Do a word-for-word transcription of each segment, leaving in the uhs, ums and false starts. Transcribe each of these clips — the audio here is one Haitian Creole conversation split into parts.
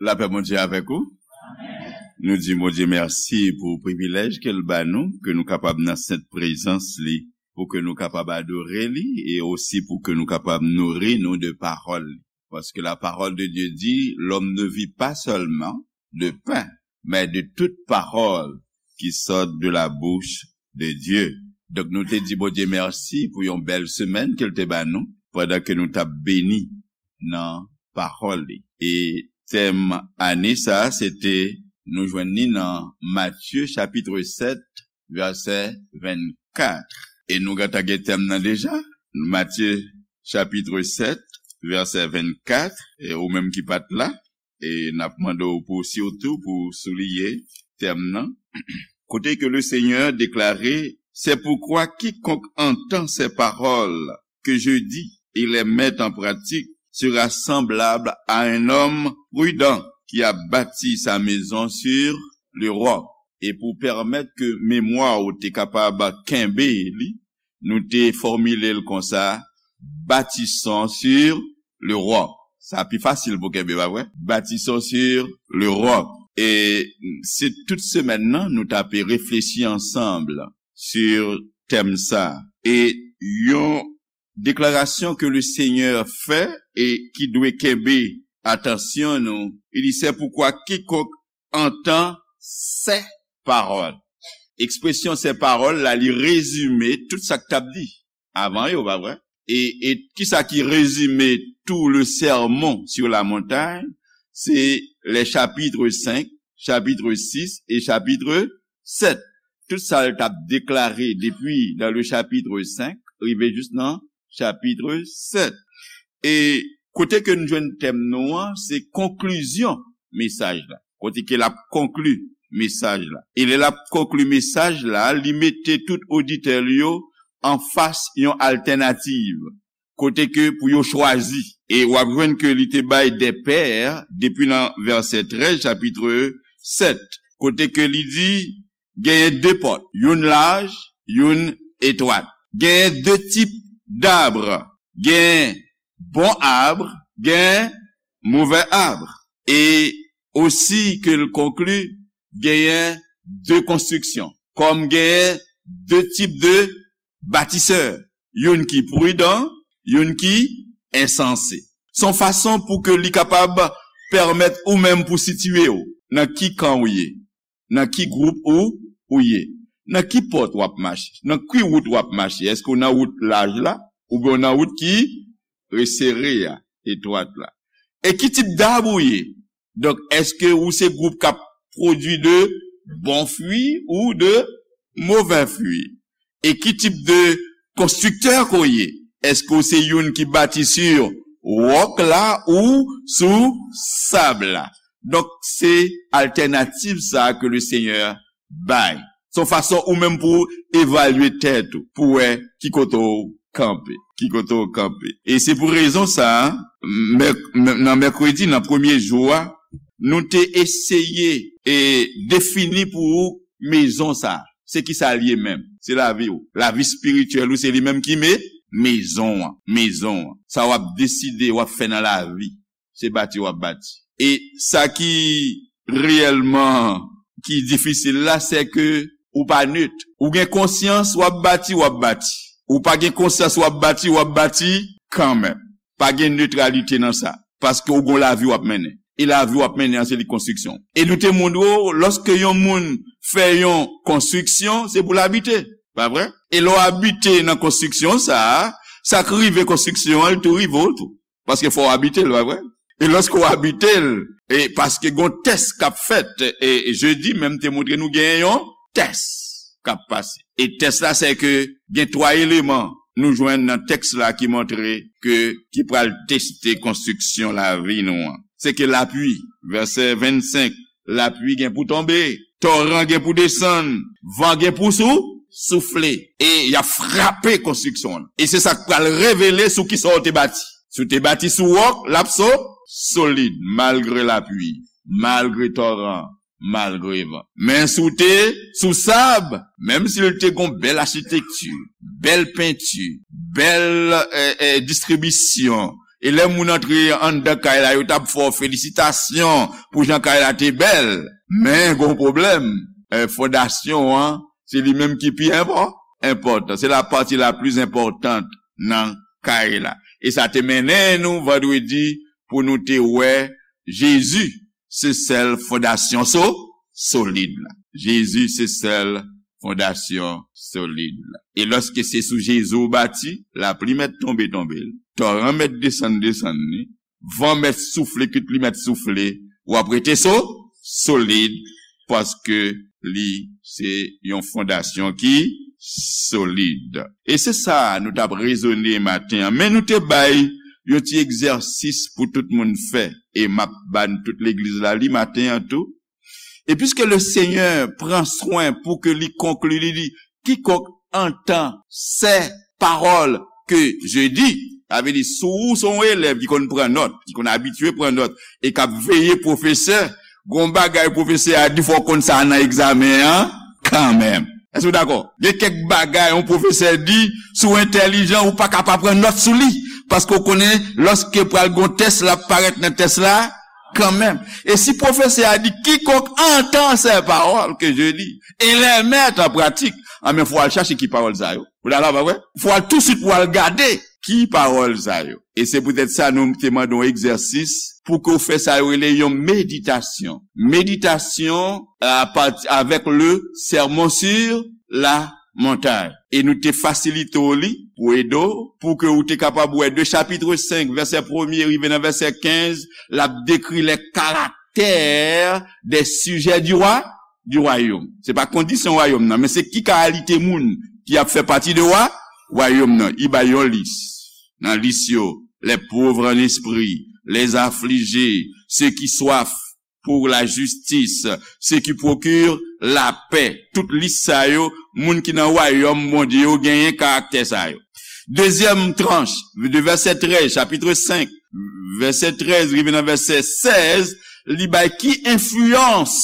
Lapè Bondye avèk ou. Nou di Bondye mèsi pou privilèj ke l ba nou, ke nou kapab nan sent prezans li, pou ke nou kapab adore li, e osi pou ke nou kapab nouri nou de pawòl li. Paske la parole de Dieu dit, l'homme ne vit pas seulement de pain, mais de toute parole qui sort de la bouche de Dieu. Donk nou te di Bondye mèsi pou yon bèl semèn ke l te ba nou, pandan ke nou t ap beni nan pawòl li. E tèm ane sa a, se te, nou jwenn li nan Matye chapit sèt, vèsè vennkat. E nou gentan gen tèm nan deja. Matye chapit sèt, vèsè vennkat, e ou menm ki pa t la, e n ap mande w pou sitou pou souliye tèm nan. Kote ke le Seigneur déclarait, c'est pourquoi quiconque entend ces paroles que je dis et les met en pratique sera semblable à un homme prudent qui a bâti sa maison sur le roc. E pou pèmèt ke memwa ou te kapab kenbe li, nou te fòmile l konsa, bâtissons sur le roc. Sa pi fasil pou kenbe, pa vre? Bâtissons sur le roc. E se tout semèn nan, nou t ape reflechi ansanm sur tèm sa. E yon deklarasyon ke le Seigneur fè e ki dwe kenbe atansyon nou, il dit, c'est pourquoi quiconque entend ces paroles. Ekspresyon ces paroles la, li rezime tout sa k t ap di avan yo, pa vre? E, e kisa ki rezime tout le sermon sur la montagne? Se les chapitres cinq, chapitre six et chapitre sept. Tout sa l t ap deklare depi dans le chapitre cinq, rive jis nan chapitre sept. E kote ke nou jwenn tèm nou an, se konklizyon mesaj la. Kote ke l ap konkli mesaj la. E lè l ap konkli mesaj la, li mete tout oditè l yo anfas yon altènativ. Kote ke pou yo chwazi. E w ap jwenn ke li te bay des paires depi nan vèsè trèz, chapitre sept. Kote ke li di, genyen de pòt, youn laj, youn etwat. Genyen de tip d'arbre, genyen bon arbre, genyen mauvais arbre. E osi ke l konkli, genyen de konstriksyon. Kòm genyen de tip de batisè, youn ki pridan, youn ki ensanse. Se yon fason pou ke li kapab pèmèt ou menm pou sitiye w nan ki kan ou ye, nan ki gwoup ou, ou ye, nan ki pòt w ap mache, nan ki wout w ap mache. Èske w nan wout laj la, oubyen w nan wout ki resere a, etwat la? E ki tip dab ou ye? Donk, èske ou se gwoup k ap pwodui de bon fwi ou de movè fwi? E ki tip de konstriktè ke w ye? Èske w se youn ki bati sou wòk la ou sou sab la? Donk, se altènativ sa a ke le Seigneur bay. Se yon fason ou menm pou evalye tèt ou, pou wè ki kote w kanpe, ki kote w kanpe. E se pou rezon sa a, mèk-, mè-, nan mèkredi, nan premye jou a, nou te eseye e defini pou ou mezon sa a. Se ki sa l ye menm? Se lavi w. Lavi espirityèl ou, se li menm ki me-, mezon an. Mezon an. Sa w ap deside, w ap fè nan lavi. Se bati w ap bati. E sa ki reyèlman, ki difisil la, se ke ou pa net. Ou gen konsyans, w ap bati, w ap bati. Ou pa gen konsyans, w ap bati, w ap bati kanmenm. Pa gen netralite nan sa. Paske ou gon lavi w ap mennen. E lavi w ap mennen an, se li konstriksyon. E nou te montre w, lòske yon moun fè yon konstriksyon, se pou l abite. Pa vre? E lè w abite nan konstriksyon sa a, sa k rive konstriksyon an, li tou rive w tou. Paske fò w abite l, pa vre? E lòske w abite l, e paske gon tès k ap fèt, e, e jedi menm te montre nou gen yon tès k ap pase. E tès la, se ke gen twa eleman nou jwenn nan tèks la ki montre ke, ki pral teste konstriksyon lavi nou an. Se ke lapli, vèsè vennsenk, lapli gen pou tonbe, toran gen pou desann, van gen pou sou, soufle, e y ap frape konstriksyon an. E se sa k pral revele sou kisa w te bati. Si w te bati sou wòk, l ap so-, solid, malgre lapli, malgre toran, malgre van. Men si w te sou sab, menm si l te gon bèl achitekti, bèl penti, bèl, e, e, distribisyon, E lè moun antre anndan kay la, yo t ap fè w felisitasyon pou jan kay la te bèl. Men, gon pwoblèm. Eh, fondasyon an, se li menm ki pi enpò-, enpòtan. Se la pati la pli enpòtan nan kay la. E sa te mennen nou vandredi pou nou te wè Jezi se sèl fondasyon so-, solid la. Jezi se sèl fondasyon solid la. E lòske se sou Jezi w bati, lapli mèt tonbe, tonbe l. Toran mèt desann, desann li. Van mèt soufle, kit li mèt soufle. W ap rete so-, solid paske li se yon fondasyon ki solid. E se sa nou t ap rezone maten an. Men nou te bay yon ti egzèsis pou tout moun fè. E m ap ban tout legliz la li maten an tou. Et puisque le Seigneur prend soin pour que li konkli, li di, quiconque entend ces paroles que je dis, sa vle di, si w se yon elèv ki konn pran nòt, ki konn abitye pran nòt, e k ap veye pwofesè, gon bagay pwofesè a di, fò w konn sa nan egzamen an, kanmenm. Èske w dakò? Gen kèk bagay yon pwofesè di, si w entèlijan, ou pa ka pa pran nòt sou li, paske w konnen, lòske pral gon tès, l ap parèt nan tès la, kanmenm. E si pwofesè a di, quiconque entend ces paroles que je dis et les met en pratique, anben, fò w al chache ki pawòl sa yo. Ou dakò, pa vre? Fò w al tousuit pou w al gade ki pawòl sa yo. E se poutèt sa nou te mande w egzèsis pou ke w fè sa yo rele yon meditasyon. Meditasyon a pati avèk le Sermon sur la Montagne. E nou te fasilite w li pou ede w, pou ke ou te kapab wè de chapitre cinq, vèsè premye rive nan vèsè kenz, l ap dekri lè karaktè des sujets du roi, du royaume. Se pa kondisyon wayòm nan, men se ki kalite moun ki ap fè pati de wa-, wayòm nan. Li bay yon lis. Nan lis yo, les pauvres en esprit, les affligés, ceux qui soif pour la justice, ceux qui procurent la paix. Tout lis sa yo, moun ki nan wayòm Bondye yo genyen karaktè sa yo. Dezyèm tranch, de vèsè trèz, chapitre cinq, vèsè trèz rive nan vèsè sèz, li bay ki enfliyans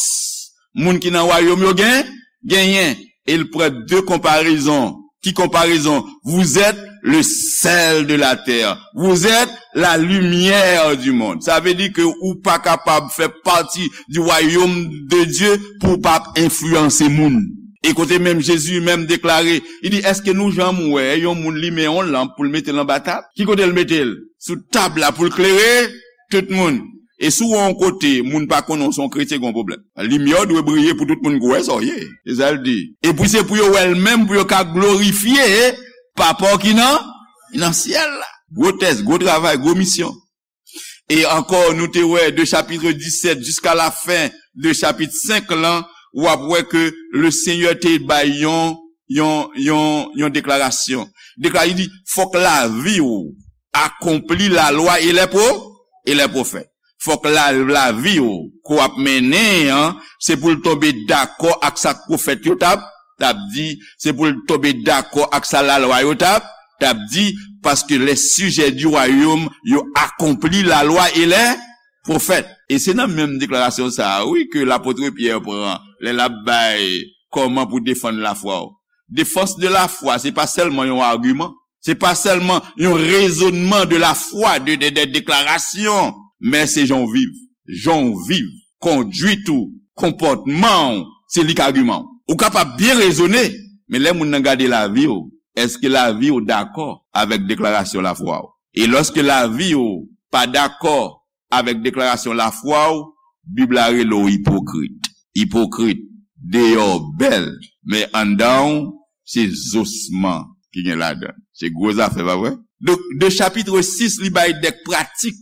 moun ki nan wayòm yo gen, genyen. E l pran de konparezon. Ki konparezon? Vous êtes le sel de la terre. Vous êtes la lumière du monde. Sa vle di ke ou pa kapab fè pati du royaume de Dieu pou w pa ap enfliyanse moun. E kote menm Jezi menm deklare, li di, èske nou janm wè yon moun limen yon lanp pou l mete l anba tab? Ki kote l mete l? Sou tab la pou l klere tout moun. E si w wè yon kote, moun pa konnen w se yon kretyen, gen yon pwoblèm. Limyè w dwe briye pou tout moun ka wè sa w ye. Se sa l di. Epi se pou yo wè l menm, pou yo ka glorifye Papa w ki nan, nan syèl la. Gwo tès, gwo travay, gwo misyon. E ankò, nou te wè de chapitre dix-sept jiska la fen de chapit senk lan, w ap wè ke le Senyè te bay yon, yon, yon, yon deklarasyon. Deklarasyon, li di, fòk lavi w akonpli lalwa e lè pwo-, e lè pwofèt. Fòk la, lavi w ke w ap mennen an, se pou l tonbe dakò ak sa k pwofèt yo t ap, t ap di, se pou l tonbe dakò ak sa lalwa yo t ap, t ap di, paske les sujets du royaume, yo akonpli lalwa e lè pwofèt. E se nan menm deklarasyon sa a, wi, ke lapot Pyè pran, lè l ap bay kòman pou defann lafwa w. Défense de la foi, se pa sèlman yon agiman. Se pa sèlman yon rezonnman de la foi, de, de, de deklarasyon, men se jan w viv. Jan w viv, kondwit ou, konpòtman w, se li k agiman w. Ou kapab byen rezone, men lè moun nan gade lavi w, èske lavi w dakò avèk deklarasyon lafwa w? E lòske lavi w pa dakò avèk deklarasyon lafwa w, Bib la rele w ipokrit. Ipokrit, deyò w bèl, men anndan w, se zosman ki gen ladan l. Se gwo zafè, pa vre? Donk, de chapitre six, li bay de pratik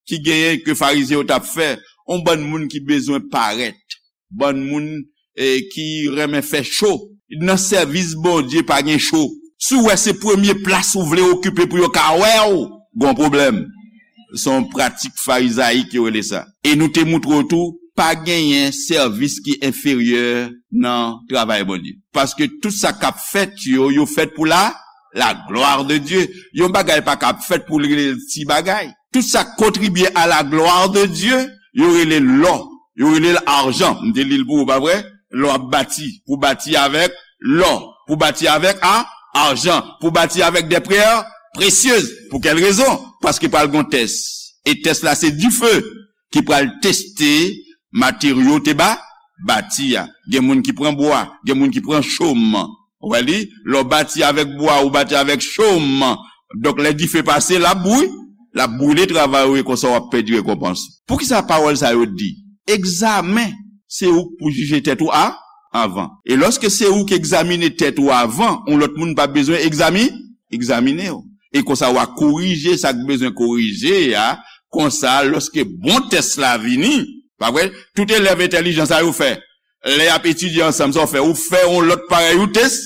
ki genyen ke Farizyen yo t ap fè, yon bann moun ki bezwen parèt, bann moun, eh, ki renmen fè cho. Nan sèvis Bondye pa gen cho. Si w wè se premye plas ou vle okipe pou yo ka wè w, gon pwoblèm. Se yon pratik farizayik yo rele sa. E nou te moutre w tou, pa genyen sèvis ki enferyè nan travay Bondye. Paske tout sa k ap fèt yo, yo fèt pou la, la gloire de Dieu. Yon bagay pa ka ap fèt pou l rele l ti bagay. Tout sa k kontribye à la gloire de Dieu, yo rele l lò, yo rele l ajan. M te li l pou ou, pa vre? Lè w ap bati, pou bati avèk lò, pou bati avèk a, ajan, pou bati avèk des pierres précieuses. Pou kèl rezon? paske pral gon tès. E tès la se dife ki pral teste materyo te ba, bati a. Gen moun ki pran bwa, gen moun ki pran chòm. Ou wè li, lè w bati avèk bwa, ou bati avèk chòm. Donk, lè dife pase, l ap bri-, l ap brile travay ou e konsa w ap pèdi rekonpans. Poukisa pawòl sa yo di? Egzamen, se ou k pou jije tèt ou a, avan. E lòske se ou k egzamine tèt ou avan, yon lòt moun pa bezwen egzami-, egzamine w. E konsa w a korije sa k bezwen korije a, konsa lòske bon tès la vini, pa vre? Tout elèv entèlijan sa yo fè. Lè y ap etidye ansanm, sa w fè? Ou fè yon lòt parèy, ou tes-,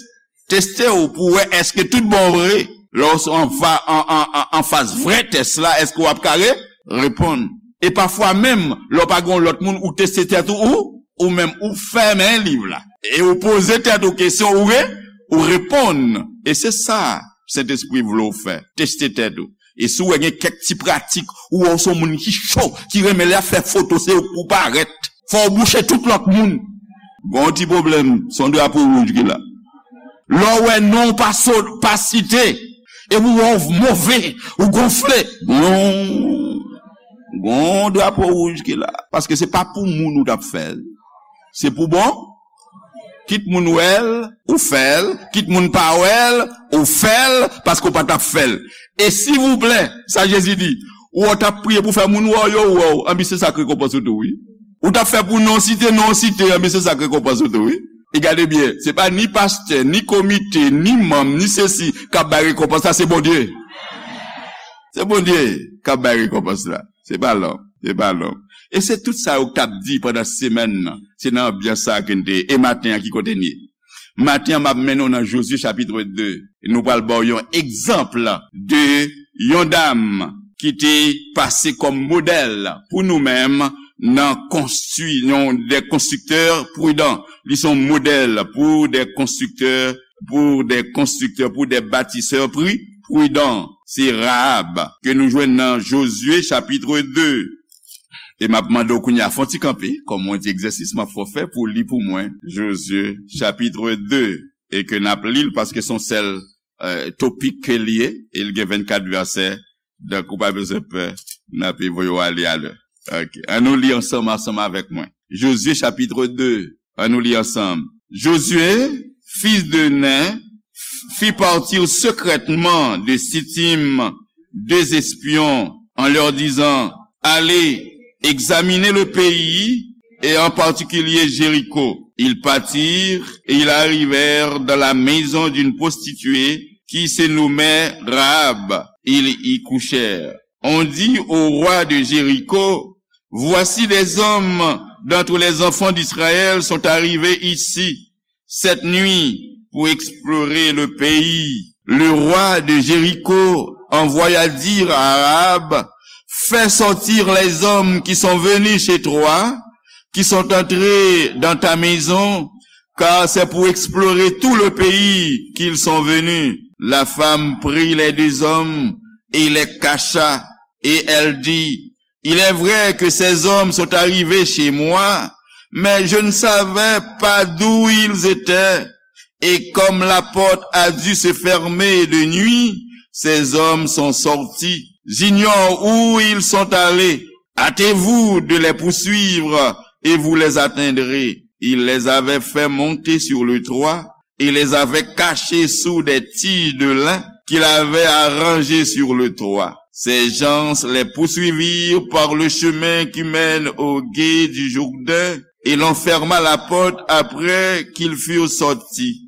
teste w pou wè èske tout bon vre. Lè w an fa-, an, an, an, anfas vrè tès la, èske w ap ka re-, reponn? E pafwa menm, lè w pa gen yon lòt moun, ou teste tèt ou, ou, ou menm, ou fèmen liv la. E ou poze tèt ou kesyon, ou re-, ou reponn. E se sa Sentespri vle w fè. Teste tèt ou. E si w wè gen kèk ti pratik, ou wè w se yon moun ki cho, ki renmen lè y ap fè foto, se ou k pou parèt. Fò w bouche tout lòt moun. Gon ti pwoblèm, se yon drapo wouj ki la. Lè w wè non w pa so-, pa site, e ou wè w move, ou gonfle, gon, gon drapo wouj ki la. Paske se pa pou moun ou t ap fè l. Se pou bon. Kit moun wè l, ou fè l. Kit moun pa wè l, ou fè l, paske w pa t ap fè l. E silvouplè, sa Jezi di, ou wè w t ap priye pou fè moun wè w, yo wè w, anben se sa k rekonpans ou tou, wi. Ou t ap fè pou non site, non site, anben se sa k rekonpans ou tou, wi. E gade byen, se pa ni pastè, ni komite, ni manm, ni sesi k ap bay rekonpans la, se Bondye. Se Bondye k ap bay rekonpans la. Se pa lòm, se pa lòm. E se tout sa yo k t ap di pandan semèn nan. Se nan anbyans sa a ke n te ye. E maten an, ki kote n ye? Maten an, m ap mennen w nan Jozye chapit de. E nou pral ba w yon egzanp de yon dam ki te pase kòm modèl pou nou menm nan konstwi-, yon de konstriktè pridan. Li se yon modèl pou de konstriktè, pou de konstriktè, pou de batisè pri-, pridan. Se Rahab ke nou jwenn nan Jozye chapit de. E m ap mande w kounye a, fè yon ti kanpe, kòm yon ti egzèsis m ap fè w fè pou w li pou mwen, Jozye chapit de, e ke n ap li l paske se yon sèl, eh, topik ke l ye, e l gen vennkat vèsè, donk ou pa bezwen pè, n ape voye w ale alè. Ok, ann nou li ansanm, ansanm avèk mwen. Jozye chapit de, ann nou li ansanm. Josué, fils de Nun, fit partir secrètement de Sittim deux espions en leur disant, allez, examinez le pays et en particulier Jéricho. Ils partirent et ils arrivèrent dans la maison d'une prostituée qui se nommait Rahab. Ils y couchèrent. On dit au roi de Jéricho, voici des hommes d'entre les enfants d'Israël sont arrivés ici cette nuit pour explorer le pays. Le roi de Jéricho envoya dire à Rahab, fais sortir les hommes qui sont venus chez toi, qui sont entrés dans ta maison, car c'est pour explorer tout le pays qu'ils sont venus. La femme prit les deux hommes et les cacha, et elle dit, il est vrai que ces hommes sont arrivés chez moi, mais je ne savais pas d'où ils étaient. Et comme la porte a dû se fermer de nuit, ces hommes sont sortis. J'ignore où ils sont allés. Hâtez-vous de les poursuivre et vous les atteindrez. Il les avait fait monter sur le toit et les avait cachés sous des tiges de lin qu'il avait arrangées sur le toit. Ces gens les poursuivirent par le chemin qui mène au gué du Jourdain et l'on ferma la porte après qu'ils furent sortis.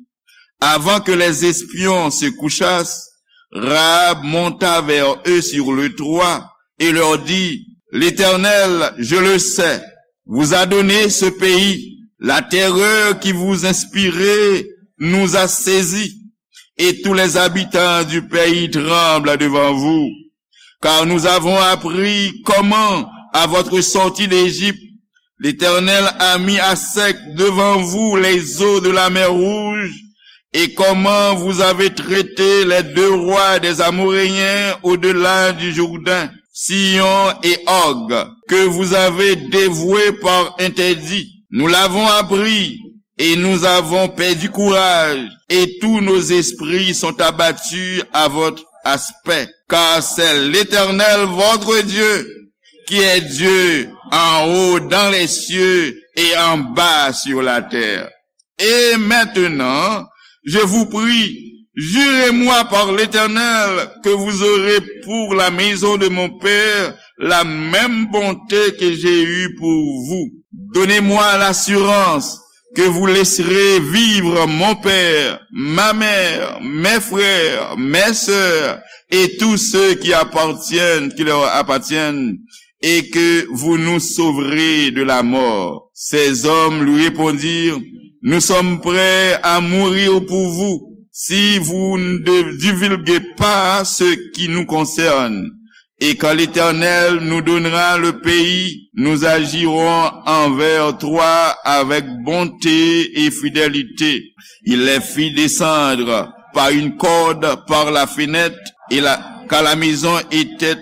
Avant que les espions se couchassent, Rahab monta vers eux sur le toit et leur dit, l'Éternel, je le sais, vous a donné ce pays. La terreur qui vous inspirez nous a saisis, et tous les habitants du pays tremblent devant vous. Car nous avons appris comment, à votre sortie d'Égypte, l'Éternel a mis à sec devant vous les eaux de la mer Rouge, et comment vous avez traité les deux rois des Amoréens au-delà du Jourdain, Sihon et Og, que vous avez dévoués par interdit. Nous l'avons appris, et nous avons perdu courage, et tous nos esprits sont abattus à votre, aspect, car c'est l'Éternel votre Dieu qui est Dieu en haut dans les cieux et en bas sur la terre. Et maintenant, je vous prie, jurez-moi par l'Éternel que vous aurez pour la maison de mon père la même bonté que j'ai eue pour vous. Donnez-moi l'assurance que vous laisserez vivre mon père, ma mère, mes frères, mes sœurs et tous ceux qui appartiennent, qui leur appartiennent, et que vous nous sauverez de la mort. Ces hommes lui répondirent, nous sommes prêts à mourir pour vous si vous ne divulguez pas ce qui nous concerne. Et quand l'Éternel nous donnera le pays, nous agirons envers toi avec bonté et fidélité. Il les fit descendre par une corde par la fenêtre, et la, car la maison était,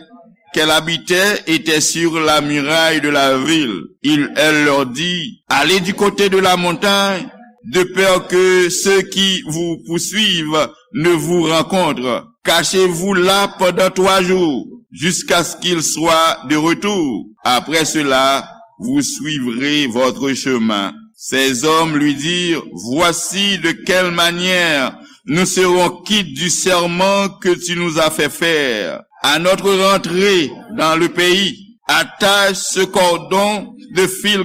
qu'elle habitait était sur la muraille de la ville. Il, elle leur dit, allez du côté de la montagne, de peur que ceux qui vous poursuivent ne vous rencontrent. Cachez-vous là pendant trois jours, jusqu'à ce qu'il soit de retour. Après cela, vous suivrez votre chemin. Ces hommes lui dirent, voici de quelle manière nous serons quittes du serment que tu nous as fait faire. À notre rentrée dans le pays, attache ce cordon de fil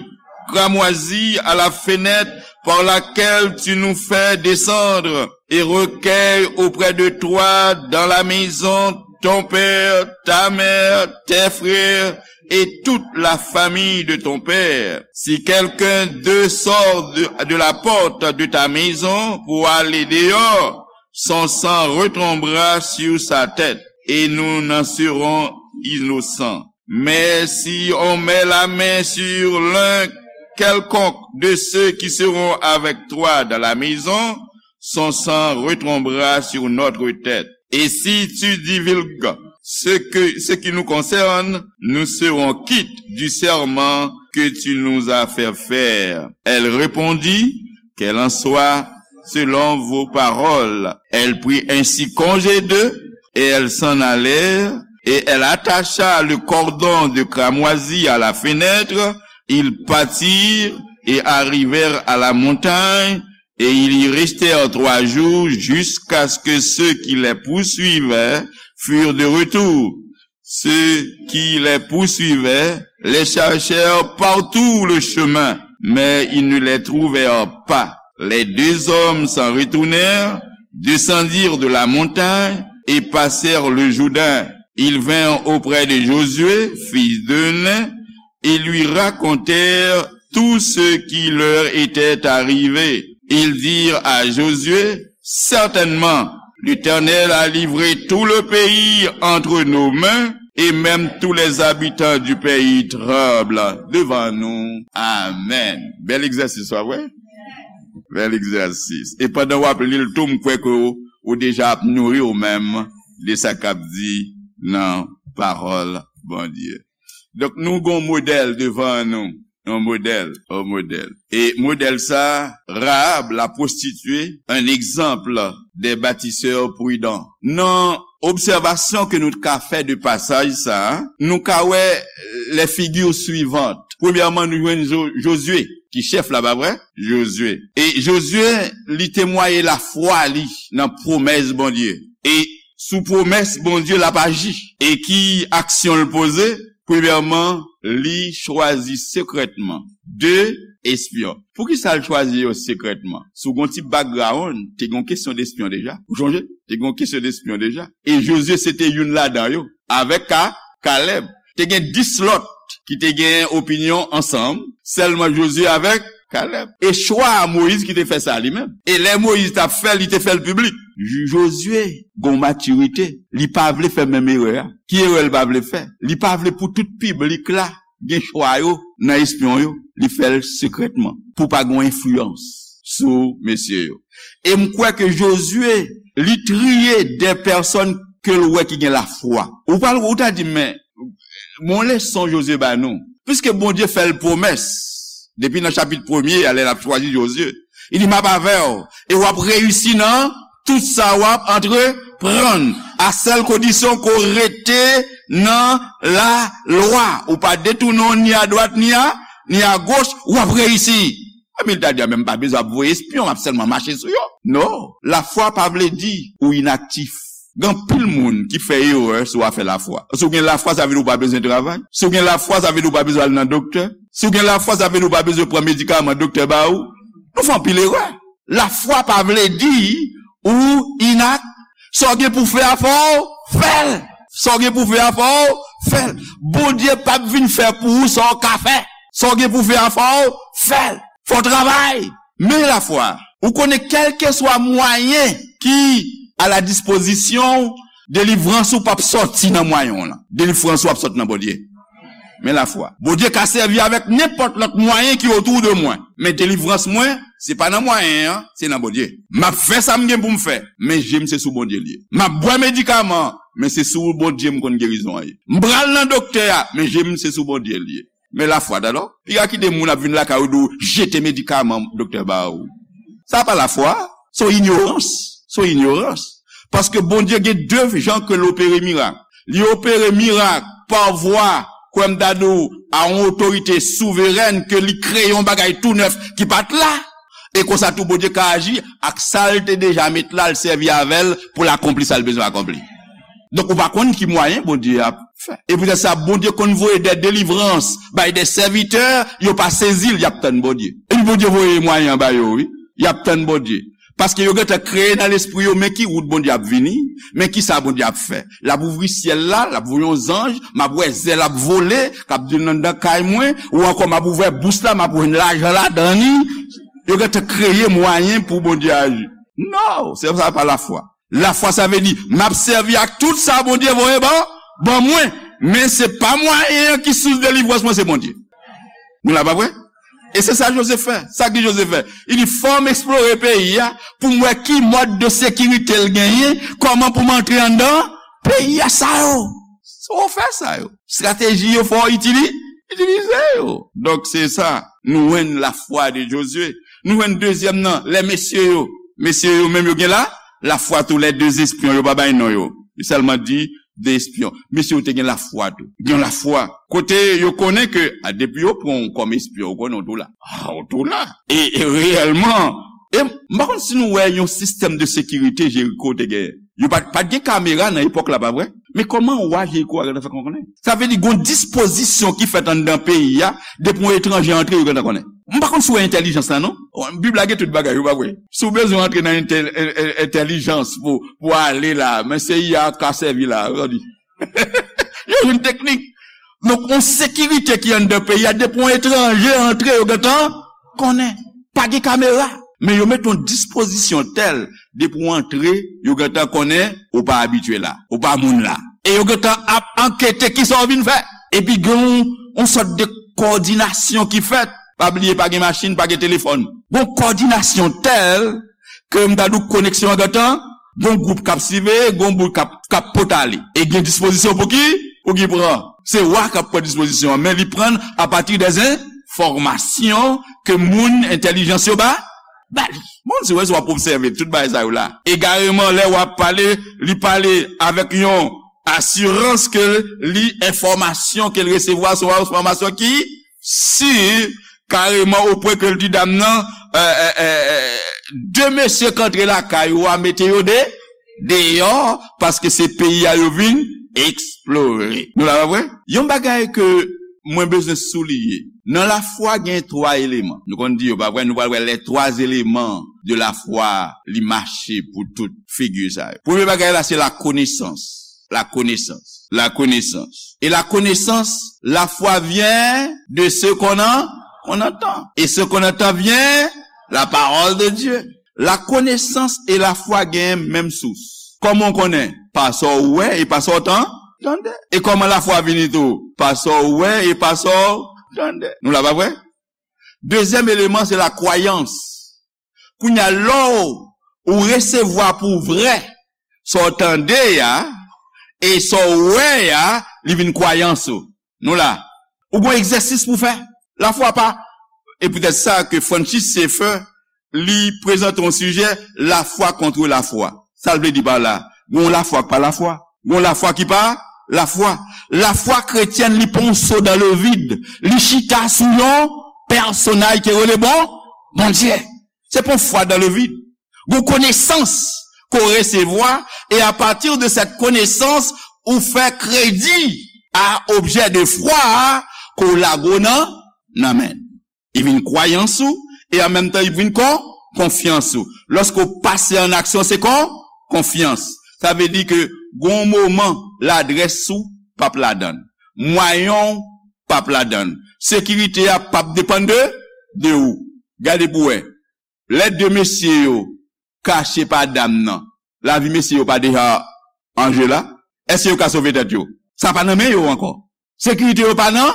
cramoisi à la fenêtre par laquelle tu nous fais descendre et recueille auprès de toi dans la maison ton père, ta mère, tes frères et toute la famille de ton père. Si quelqu'un d'eux sort de, de la porte de ta maison pour aller dehors, son sang retombera sur sa tête et nous n'en serons innocents. Mais si on met la main sur l'un quelconque de ceux qui seront avec toi dans la maison, son sang retombera sur notre tête. Et si tu divulgues ce que, ce qui nous concerne, nous serons quittes du serment que tu nous as fait faire. Elle répondit, qu'elle en soit selon vos paroles. Elle prit ainsi congé d'eux, et elles s'en allèrent, et elle attacha le cordon de cramoisi à la fenêtre. Ils partirent et arrivèrent à la montagne, et ils y restèrent trois jours jusqu'à ce que ceux qui les poursuivaient furent de retour. Ceux qui les poursuivaient les cherchèrent par tout le chemin, mais ils ne les trouvèrent pas. Les deux hommes s'en retournèrent, descendirent de la montagne et passèrent le Jourdain. Ils vinrent auprès de Josué, fils de Nun, et lui racontèrent tout ce qui leur était arrivé. Ils dirent à Josué, certainement, l'Éternel a livré tout le pays entre nos mains, et même tous les habitants du pays tremblent devant nous. Amen. Bèl egzèsis, pa vre? Bèl egzèsis. E pandan w ap li l tou, m kwè ke w, ou deja ap nouri w menm de sa k ap di nan pawòl Bondye. Donk, nou gon modèl devan nou. Yon modèl, yon modèl. E modèl sa, Rahab, la prostituée, un exemple des bâtisseurs prudents. Nan obsèvasyon ke nou ka fè de pasaj sa, nou ka wè les figures suivantes. Premyèman, nou jwenn Jo-, Josué, ki chèf la, pa vre? Josué. E Josué, li temwaye lafwa li nan pwomès Bondye. E sou pwomès Bondye l ap aji. E ki aksyon l poze? Premyèman, li chwazi sekrètman de espyon. Poukisa l chwazi yo sekrètman? Si w gen yon ti background, te gen yon kesyon de espyon deja. Ou sonje? Te gen yon kesyon de espyon deja. E Josué se te youn ladan yo. Avèk Ka-, Caleb. Te gen dis lòt ki te gen opinyon ansanm, sèlman Josué avèk Caleb. E chwa a Moyiz ki te fè sa li menm. E lè Moyiz t ap fè l, li te fè l piblik. Jo-, Josué gon matirite. Li pa vle fè menm erè a. Ki erè l pa vle fè? Li pa vle pou tout piblik la gen chwa yo nan espyon yo. Li fè l sekrètman pou pa gon enfliyans sou mesye yo. E m kwè ke Josué, li triye de pèsòn ke l wè ki gen lafwa. Ou pral, ou ta di, men, bon leson Josué ba nou. Piske Bondye fè l pwomès, depi nan chapit premye a, lè l ap chwazi Josué, li di, m ap avè w, e w ap reyisi nan tout sa w ap antreprann. A sèl kondisyon ke w rete nan lalwa. Ou pa detounen w ni adwat, ni a, ni agoch, w ap reyisi. Epi l ta di, a, men m pa bezwen ap voye espyon, m ap sèlman mache sou yo. Non, lafwa pa vle di ou inaktif. Gen anpil moun ki fè erè sou afè lafwa. Si w gen lafwa, sa vle di ou pa bezwen travay. Si w gen lafwa, sa vle di ou pa bezwen al nan doktè. Si w gen lafwa, sa vle di ou pa bezwen pran medikaman doktè ba ou. Nou fè anpil erè. Lafwa pa vle di ou inak. Sa w gen pou fè a, fò w fè l. Sa w gen pou fè a, fò w fè l. Bondye p ap vin fè pou ou sa w ka fè. Sa w gen pou fè a, fò w fè l. Fò w travay. Men lafwa, ou konnen kèlkeswa mwayen ki a la dispozisyon w, delivrans ou p ap sòti nan mwayen w lan. Delivrans ou ap sòti nan Bondye. Men lafwa. Bondye ka sèvi avèk nenpòt lòt mwayen ki otou de mwen. Men delivrans mwen, se pa nan mwayen an, se nan Bondye. M ap fè sa m gen pou m fè, men je m se sou Bondye l ye. M ap bwè medikaman, men se sou Bondye m konn gerizon an ye. M pral nan doktè a, men je m se sou Bondye l ye. Men lafwa, tande. Piga kite moun ap vin lakay ou di w jete medikaman doktè ba ou. Sa pa lafwa, se yon inyorans. Se yon inyorans. Paske Bondye gen de jan ke l opere mirak. Li opere mirak pa vwa, kwè m ta di w, a yon otorite souverèn ke li kreye yon bagay tou nèf ki pa t la. E konsa tou Bondye ka aji ak sa l te deja met la, l sèvi avè l pou l akonpli sa l bezwen akonpli. Donk, ou pa konn ki mwayen Bondye ap fè. E poutèt sa, Bondye konn voye de delivrans bay de sèvitè, yo pa sezi l, y ap tann Bondye. Epi Bondye voye mwayen an ba yo, wi. Y ap tann Bondye. Paske yo gentan kreye nan lespri yo, men ki wout Bondye ap vini, men ki sa Bondye ap fè. L ap ouvri syèl la, l ap voye yon zanj, m ap wè zèl ap vole, k ap di l anndan kay mwen, ou ankò m ap ouvè bous la, m ap wè lajan ladan li. Yo gentan kreye mwayen pou Bondye aji. Non, se sa pa lafwa. Lafwa sa vle di, m ap sèvi ak tout sa Bondye voye ban, ban mwen. Men se pa mwayen an ki sous delivrans mwen, se Bondye. Nou la pa vre? E se sa Jozef fè. Sa ki Jozef fè? Li di, fò m eksplore peyi a pou m wè ki mòd de sekirite l genyen, kòman pou m antre anndan peyi a sa yo. Fò w fè sa yo. Estrateji yo fò w itili, itilize yo. Donk se sa, nou jwenn lafwa de Jozye. Nou jwenn dezyèm nan, lè mesye yo. Mesye yo menm yo gen la, lafwa tou lè de espyon yo pa bay non yo. Yo sèlman di de espyon. Mesye yo te gen lafwa tou. Gen lafwa. Kote yo konnen ke, a, depi yo pran w kòm espyon, ou konnen w tou la. A, ou tou la. E, e reyèlman, e m pa konn si nou wè yon sistèm de sekirite Jeriko te genyen. Yo pa, pa t gen kamera nan epòk la, pa vre? Men kòman wa Jeriko a gentan fè konnen? Sa vle di gon dispozisyon ki fèt anndan peyi a, depi yon etranje antre, yo gentan konnen. M pa konn si w wè entèlijans la, non. Bib la gen tout bagay, ou pa vre? Si w bezwen antre nan entè-, en-, en-, entèlijans pou, pou ale la, men se I A ka sèvi la, ou tande. Yo jwenn teknik. Donk, yon sekirite ki anndan peyi a, depi yon etranje antre, yo gentan konnen. Pa gen kamera. Men yo met yon dispozisyon tèl, depi w antre, yo gentan konnen ou pa abitye la, ou pa moun la. E yo gentan ap ankete kisa w vin fè. Epi gen yon, yon sòt de kowòdinasyon ki fèt. Pa bliye, pa gen machin, pa gen telefòn. Gon kowòdinasyon tèl ke m ta di w koneksyon an gentan, gon gwoup k ap siveye, gon bout k ap, k ap pot ale. E gen dispozisyon pou ki, pou ki pran. Se wa k ap pran dispozisyon an, men li pran l apati de enfòmasyon ke moun entèlijans yo ba, ba li. Bon, si w wè, si w ap obsève tout bagay sa yo la. Egareman, lè w ap pale, li pale avèk yon asirans ke li enfòmasyon ke l resevwa se yon enfòmasyon ki si, kareman, opwen ke l di dam nan, euh, euh, euh, euh, de mesye k antre lakay ou a, mete yo de, deyò, paske se peyi a yo vin eksplore. Nou la, pa vre? Yon bagay ke mwen bezwen souliye. Nan lafwa, gen twa eleman. Nou konn di yo, pa vre? Nou pral wè les trois éléments de la foi, li mache pou tout figi sa yo. Premye bagay la, se la connaissance. La connaissance. La connaissance. Et la connaissance, la foi vient de ce qu'on en-, qu'on entend. Et ce qu'on entend vient la parole de Dieu. La connaissance et la foi gen menm sous. Kòman w konnen? Pa sa w wè e pa sa w tan-, tande. E kòman lafwa vini tou? Pa sa w wè e pa sa w tande. Nou la, pa vre? Dezyèm eleman, se la kwayans. Kounye a, lè w, ou resevwa pou vrè sa w tande a, e sa w wè a, li vin kwayans ou. Nou la. Ou gon egzèsis pou fè. Lafwa pa. E poutèt sa ke Francis Schaeffer, li prezante yon sijè, la foi contre la foi. Sa l vle di pa la? Gon lafwa k pa lafwa. Gon lafwa ki pa lafwa. Lafwa kretyèn, li pa yon so dans le vide. Li chita sou yon pèsonaj ki rele bon, Bondye. Se pa yon fwa dans le vide. Gon konesans ke w resevwa, e à partir de cette connaissance, ou fè kredi a objè de fwa a ke w lage w nan, nan men. Li vin kwayans ou, e an menm tan, li vin kon, konfyans ou. Lòske w pase an aksyon, se kon, konfyans. Sa vle di ke gon moman, ladrès ou p ap ladan l. Mwayen w p ap ladan l. Sekirite a p ap depann de, de ou. Gade pou wè. Lè de mesye yo kache pa dam nan, lavi mesye yo pa deja an je la? Èske yo ka sove tèt yo? Sa pa nan men yo ankò. Sekirite yo pa nan,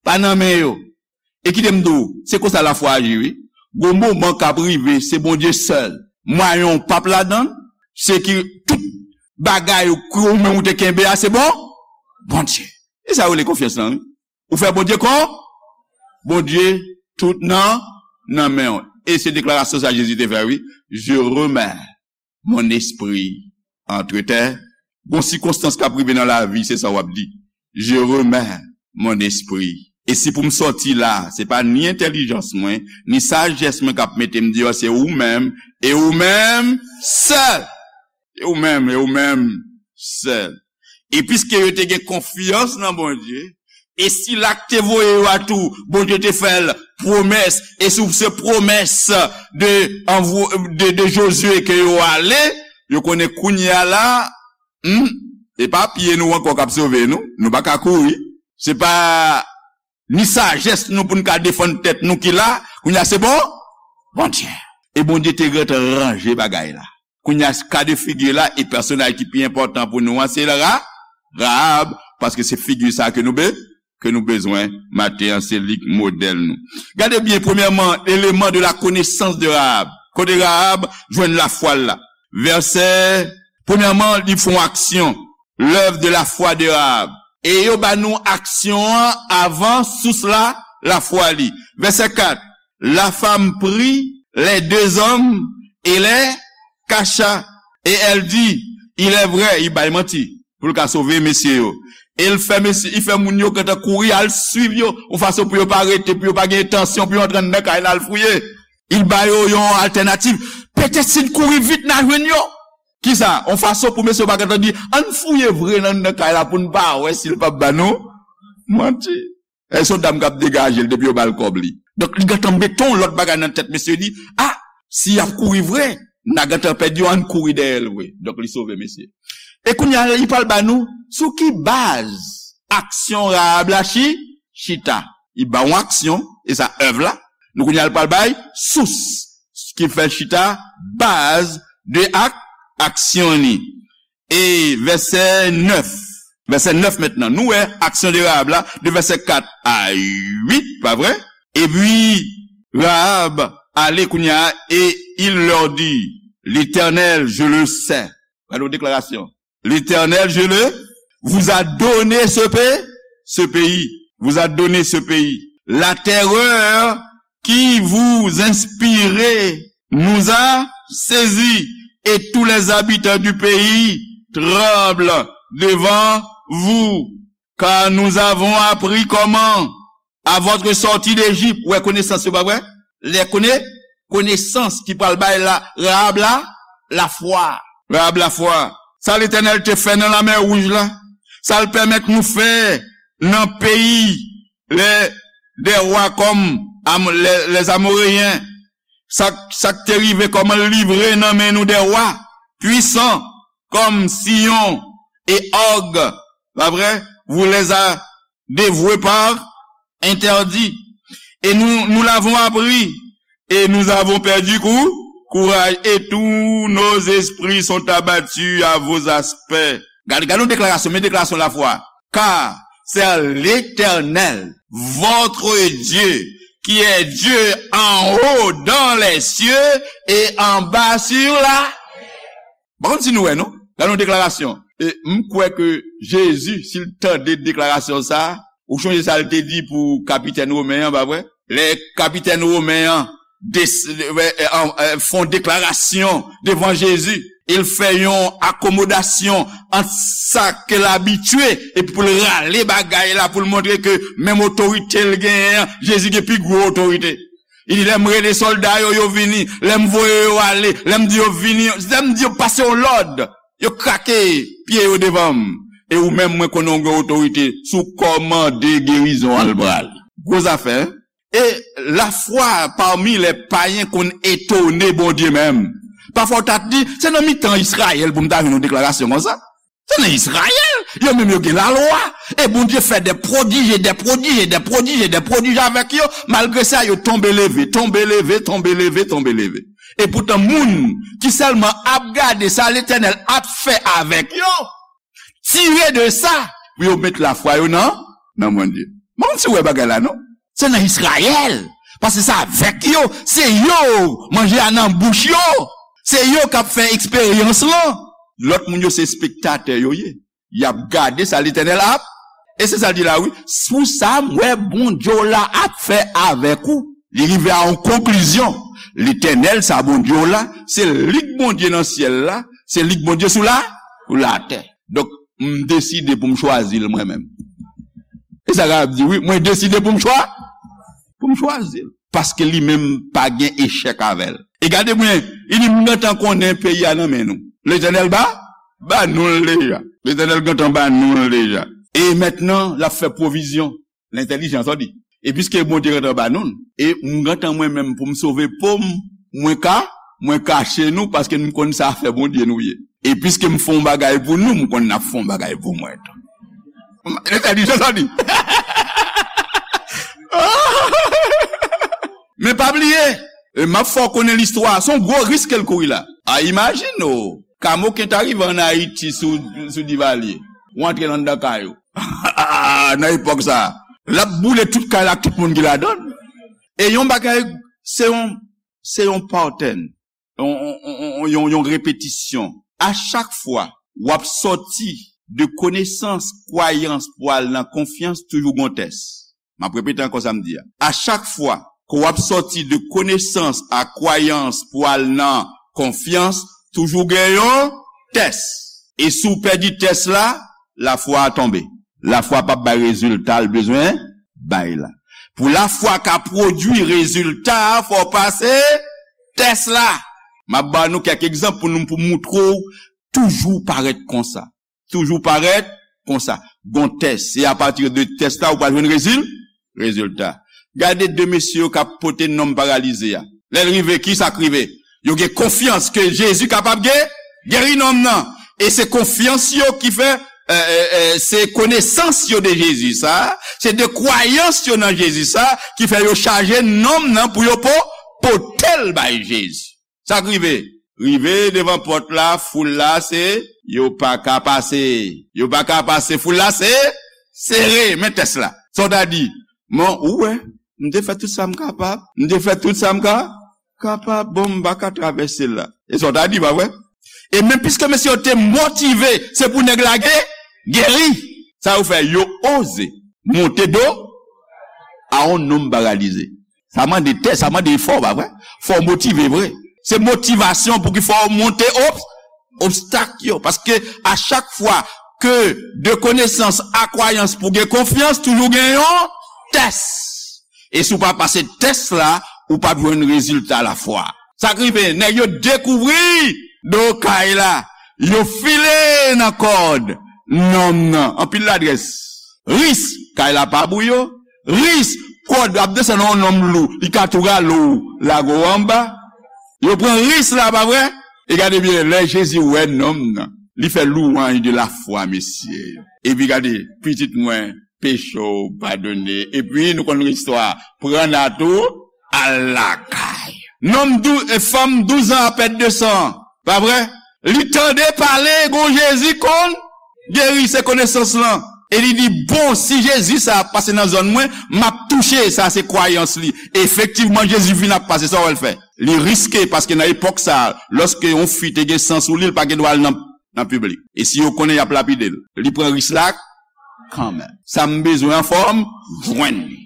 pa nan men yo. E kite m di w, se konsa lafwa aji, wi. Gon moman k ap rive, se Bondye sèl. Mwayen w p ap ladan l, se ki tout bagay ou, ou menm ou te kenbe a, se bon, Bondye. E sa yo rele konfyans lan, wi. Ou fè Bondye kon? Bondye tout nan, nan men w. E se deklarasyon sa Jezi te fè, wi. Je remets mon esprit entre tes. Gon sikonstans k ap rive nan lavi, se sa w ap di. Je remets mon esprit. E si pou m sòti la, se pa ni entèlijans mwen, ni sajès mwen k ap mete m deyò, se ou menm, e ou menm sèl. E ou menm, e ou menm sèl. E piske yo te gen konfyans nan Bondye, e sila k te voye yo a tou, Bondye te fè l pwomès, e sou se pwomès de, anvo-, de, de Jozye ke yo ale, yo konnen kounye a la, hmm, e pa pye nou ankò k ap sove nou, nou pa ka kouri. Se pa ni sajès nou pou n ka defann tèt nou ki la, kounye a se bon, Bondye. E Bondye te gentan ranje bagay la. Kounye a, ka de figi la, e pèsonaj ki pi enpòtan pou nou an, se Ra-, Rahab, paske se figi sa ke nou be-, ke nou bezwen maten an, se li k modèl nou. Gade byen, premyèman, eleman de la connaissance de Rahab. Kote Rahab jwenn lafwa l la? Vèsè, premyèman, li fè yon aksyon, l'œuvre de la foi de Rahab. E yo ba nou aksyon an avan sous la, lafwa li. Vèsè kat, la femme prit les deux hommes et les cacha. Et elle dit, il est vrai, li bay manti pou l ka sove mesye yo. E l fè mesye, li fè moun yo gentan kouri al swiv yo, yon fason pou yo pa rete, pou yo pa gen entansyon pou yo antre anndan kay la al fouye. Il ba yo yon altènativ. Petèt si n kouri vit, n a jwenn yo. Kisa? Yon fason pou mesye yo pa gentan di, ann fouye vre nan anndan kay la pou n pa wè si l p ap ba nou manti. E se yon dam k ap degaje l depi yo ba l kòb li. Donk, li gentan mete yon lòt bagay nan tèt mesye li. A, si y ap kouri vre, n a gentan pèdi yo, ann kouri dèyè l vre. Donk, li sove mesye. E kounye a, li pral ba nou sou ki baz aksyon Rahab la chi-, chita. Li ba yon aksyon, e sa èv la. Nou kounye a, l pral bay sous ki fè l chita, baz de ak-, aksyon li. E vèsè nèf. Vèsè nèf mentnan. Nou wè aksyon de Rahab la, de vèsè kat a uit, pa vre? Epi, Rahab ale kounye a, et il leur dit, L'Éternel, je le sais. Gade yon deklarasyon. L'Éternel, je le, vous a donné ce pays, ce pays, vous a donné ce pays. La terreur qui vous inspirez nous a saisis, et tous les habitants du pays tremblent devant vous, car nous avons appris comment, à votre sortie d'Égypte, ou wè konesans yo, pa vre? Lè kone-, konesans ki pral bay la, Rahab la, lafwa. Rahab lafwa. Sa Letènèl te fè nan Lamè Wouj la, sa l pèmèt nou fè nan peyi lè, dè wa kòm Am-, lè, lè Amoreyen, sa, sa k te rive kòman l livre nan men nou dè wa pwisan kòm Siyon e Og, pa vre? Vous les a dévoués par interdit. Et nous, nous l'avons appris, et nous avons perdu cou-, courage, et tous nos esprits sont abattus à vos aspects. Gade, gade yon deklarasyon, men deklarasyon lafwa. Car c'est l'Éternel, votre Dieu, qui est Dieu en haut dans les cieux et en bas sur la. Bon, si nou wè, non? Gade yon deklarasyon. E m kwè ke Jezi, si l tande deklarasyon sa a, ou chonje sa l te di pou kapitèn women an, pa vre? Lè kapitèn women an des-, e, e, an, e, fè yon deklarasyon devan Jezi, e l fè yon akomodasyon ant sa ke l abitye, epi pou l rale bagay la, pou l montre ke menm otorite l genyen an, Jezi gen pi gwo otorite. Li di, lè m rele sòlda yo, yo vini. Lè m voye yo ale, lè m di yo vini, lè m di yo pase yon lòd, yo krake pye yo devan m. E ou menm, mwen konnen w gen otorite, si w kòmande gerizon an, l prale. Gwo zafè, hein? E lafwa pami lè payen konn etone Bondye menm. Pafwa w ta di, se nan mitan Izrayèl pou m ta jwenn yon deklarasyon konsa. Se nan Izrayèl, yo menm yo gen lalwa. E Bondye fè de pwodij, de pwodij, de pwodij, de pwodij avèk yo. Malgre sa, yo tonbe leve, tonbe leve, tonbe leve, tonbe leve. E poutan, moun ki sèlman ap gade sa Letènèl ap fè avèk yo, tire de sa pou yo met lafwa yo nan, nan Bondye. Mwen, si w wè bagay la, non? Se nan Izrayèl. Paske se avèk yo. Se yo, manje a nan bouch yo. Se yo k ap fè eksperyans lan. Lòt moun yo, se espektatè yo ye. Y ap gade sa Letènèl ap. E se sa l di la, wi. Sou sa, m wè Bondye w la ap fè avèk ou. Li rive a yon konklizyon. Letènèl, sa Bondye w la, se li k Bondye nan syèl la, se li k Bondye sou la, sou latè. Donk, m deside pou m chwazi l mwen menm. E sa Rab di, wi, mwen deside pou m chwa, pou m chwazi l. Paske li menm pa gen echèk avè l. E gade byen, li di, m gentan konnen peyi a nan men nou. Letènèl ba, ba nou l deja. Letènèl gentan ba nou l deja. E mentnan, l ap fè pwovizyon. Lentèlijans, sa w di. E piske Bondye gentan ba nou l, e m gentan mwen menm pou m sove po m, mwen ka, mwen kache nou, paske m konn sa fè Bondye nou ye. E piske m fè yon bagay pou nou, m konn n ap fè yon bagay pou mwen tou. Lentèlijans, sa w di. Men pa bliye, e m ap fè w konnen listwa, se yon gwo risk ke l kouri la. A, imajine w, kamoken ta rive ann Ayiti sou, sou Divalye. Ou antre anndan kay ou. Nan epòk sa, l ap boule tout kay la ak tout moun ki ladan l. E yon bagay, se yon, se yon pattern, yon, yon, yon, yon, yon repetisyon. A chak fwa w ap sòti de konesans, kwayans pou al nan konfyans, toujou gon tès. M ap repete ankò sa m di a. A chak fwa ke w ap sòti de konesans a kwayans pou al nan konfyans, toujou gen yon tès. E si w pèdi tès la, lafwa a tonbe. Lafwa p ap bay rezilta l bezwen bay la. Pou lafwa ka pwodui rezilta a, fò w pase tès la. M ap ba nou kèk egzanp pou nou, pou moutre w toujou parèt konsa. Toujou parèt konsa. Gon tès. Se apati de tès la ou pral jwenn rezil-, rezilta. Gade de mesye yo k ap pote nonm paralize a. Lè l rive, ki sa k rive? Yo gen konfyans ke Jezi kapab ge-, geri nonm nan. E se konfyans yo ki fè, e, e, e, se konesans yo de Jezi sa, se de kwayans yo nan Jezi sa, ki fè yo chaje nonm nan pou yo po-, pote l bay Jezi. Sa k rive? Rive devan pòt la, foul la se, yo pa ka pase. Yo pa ka pase, foul la se, sere, men tès la. Sa w ta di, men ou wè, m te fè tout sa m kapab, m te fè tout sa m ka, kapab, bon, m pa ka travèse l la. E sa w ta di, pa vre? E men piske mesye yo te motive, se pou nèg la ge-, geri. Sa yo fè, yo oze monte do a yon nonm paralize. Sa mande tès, sa mande efò, pa vre? Fò w motive vre. Se motivasyon pou ki fè w monte ob-, obstak yo. Paske a chak fwa ke de konesans a kwayans pou gen konfyans, toujou gen yon tès. E si w pa pase tès la, ou p ap jwenn rezilta lafwa. Sa k rive, nèg yo dekouvri do kay la, yo file nan kòd nonm nan. Anpil ladrès. Risk, kay la pa pou yo. Risk, kòd ap desann yon nonm lou, li ka tou rale w, lage w anba. Yo pran risk la, pa vre? E gade byen, lè Jezi wè nonm nan, li fè louwanj de lafwa, mesye. Epi gade, pitit mwen, peche w padone. Epi nou konn istwa, pran nat ou, al lakay. Nonm dou-, e fanm douz an ap pèd de san, pa vre? Li tande pale, gon Jezi konn geri, se konesans lan. E li di, bon, si Jezi sa ap pase nan zòn mwen, m ap touche, sa se kwayans li. Efektivman, Jezi vin ap pase, sa w wè l fè? Li riske, paske nan epòk sa, lòske yon fi te gen san sou li, l pa gen dwa al nan, nan piblik. E si yo konnen, y ap lapide l. Li pran risk la kanmenm. Sa m bezwen an fò m jwenn li.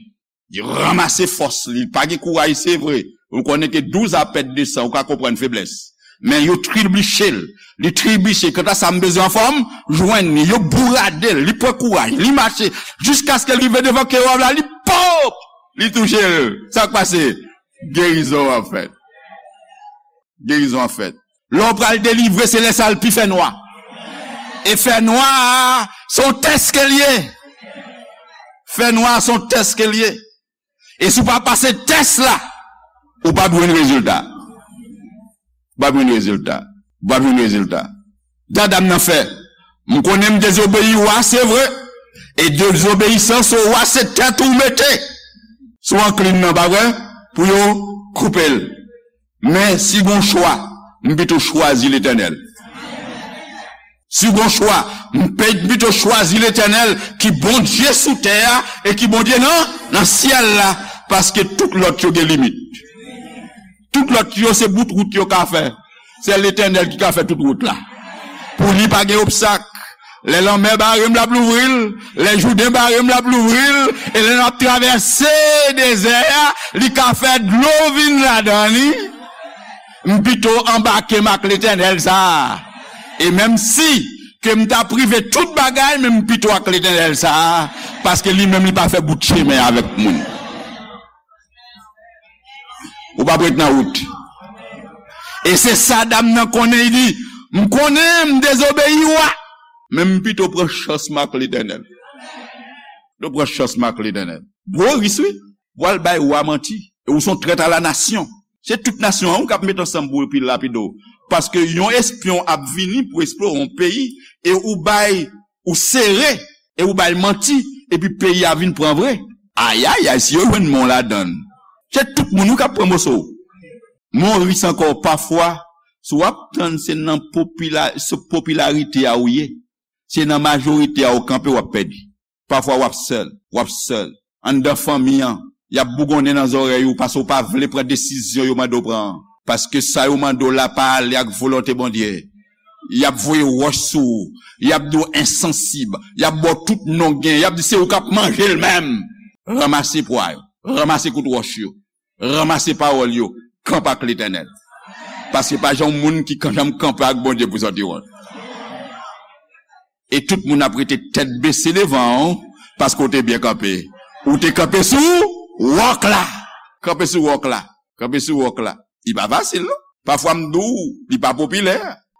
Li ranmase fòs li, li pa gen kouraj, se vre. Ou konnen ke douz a pèd de san, ou ka konprann feblès. Men yo tribiche l. Li tribiche. Kanta sa m bezwen anfòm, jwenn li. Yo bourade l. Li pran kouraj. Li mache. Jiskaske l rive devan kewob la, li pop! Li touche l. Sa k pase? Gerizon an fèt. Gerizon an fèt. Lè w pral delivre, se lè sa l pi fè nwa. E fè nwa a, se yon tès ke l ye. Fè nwa a, se yon tès ke l ye. E si w pa pase tès la, ou p ap jwenn rezilta. Ou p ap jwenn rezilta. Ou p ap jwenn rezilta. Sa dam nan fè. M konnen m dezobeyi wa, se vre. E dezobeyisans o wa, se tèt ou mete sou anklin nan, pa vre? Pou yo koupe l. Men si gon chwa, m pito chwazi Letènèl. Si gon chwa, m pe- pito chwazi Letènèl ki Bondye sou tè a e ki Bondye nan, nan syèl la, paske tout lòt yo gen limit. Tout lòt yo se bout wout yo ka fè. Se Letènèl ki ka fè tout wout la. Pou li pa gen obstak. Lè lanmè bare m, l ap louvri l. Lè Jouden bare m, l ap louvri l. E lè n ap travèse dezè a, li ka fè dlo vin ladan li. M pito anbake m ak Letènèl sa a. E menm si ke m ta prive tout bagay, men m pito ak Letènèl sa a, paske li menm li pa fè bout chemen avèk moun. Ou p ap ret nan wout. E se sa dam nan konnen, li di, m konnen m dezobeyi wa, men m pito pran chans m ak Letènèl. Pito pran chans m ak Letènèl. Gwo risk, wi. W al bay wa manti. E ou se yon trèt a la nasyon. Se tout nasyon an ou k ap met ansanm pou yo pi lapide w. Paske yon espyon ap vini pou eksplore yon peyi e ou bay, ou sere, e ou bay manti, epi peyi a vin pran vre. Ayayay, si yo jwenn men w ladan l, se tout moun wi k ap pran moso w. Men yon risk ankò, pafwa, si w ap tann se nan popila- se popilarite a ou ye, se nan majorite a ou kanpe, w ap pèdi. Pafwa w ap sèl, w ap sèl. Anndan fanmi an, y ap bougonnen nan zòrèy ou paske w pa vle pran desizyon yo mande w pran an. Paske sa yo mande w la pa ale ak volonte Bondye. Y ap voye wòch sou ou. Y ap di w ensansib. Y ap ba w tout non gen. Y ap di se ou k ap manje l menm. Ranmase pwa yo. Ranmase kout wòch yo. Ranmase pawòl yo. Kanpe ak Letènèl. Paske pa jan yon moun ki kan- janm kanpe ak Bondye pou sòti wont. E tout moun ap rete tèt bese devan w, paske w te byen kanpe. Ou te kanpe sou wòk la. Kanpe sou wòk la. Kanpe sou wòk la. Li pa fasil, non. Pafwa m di w, li pa popilè.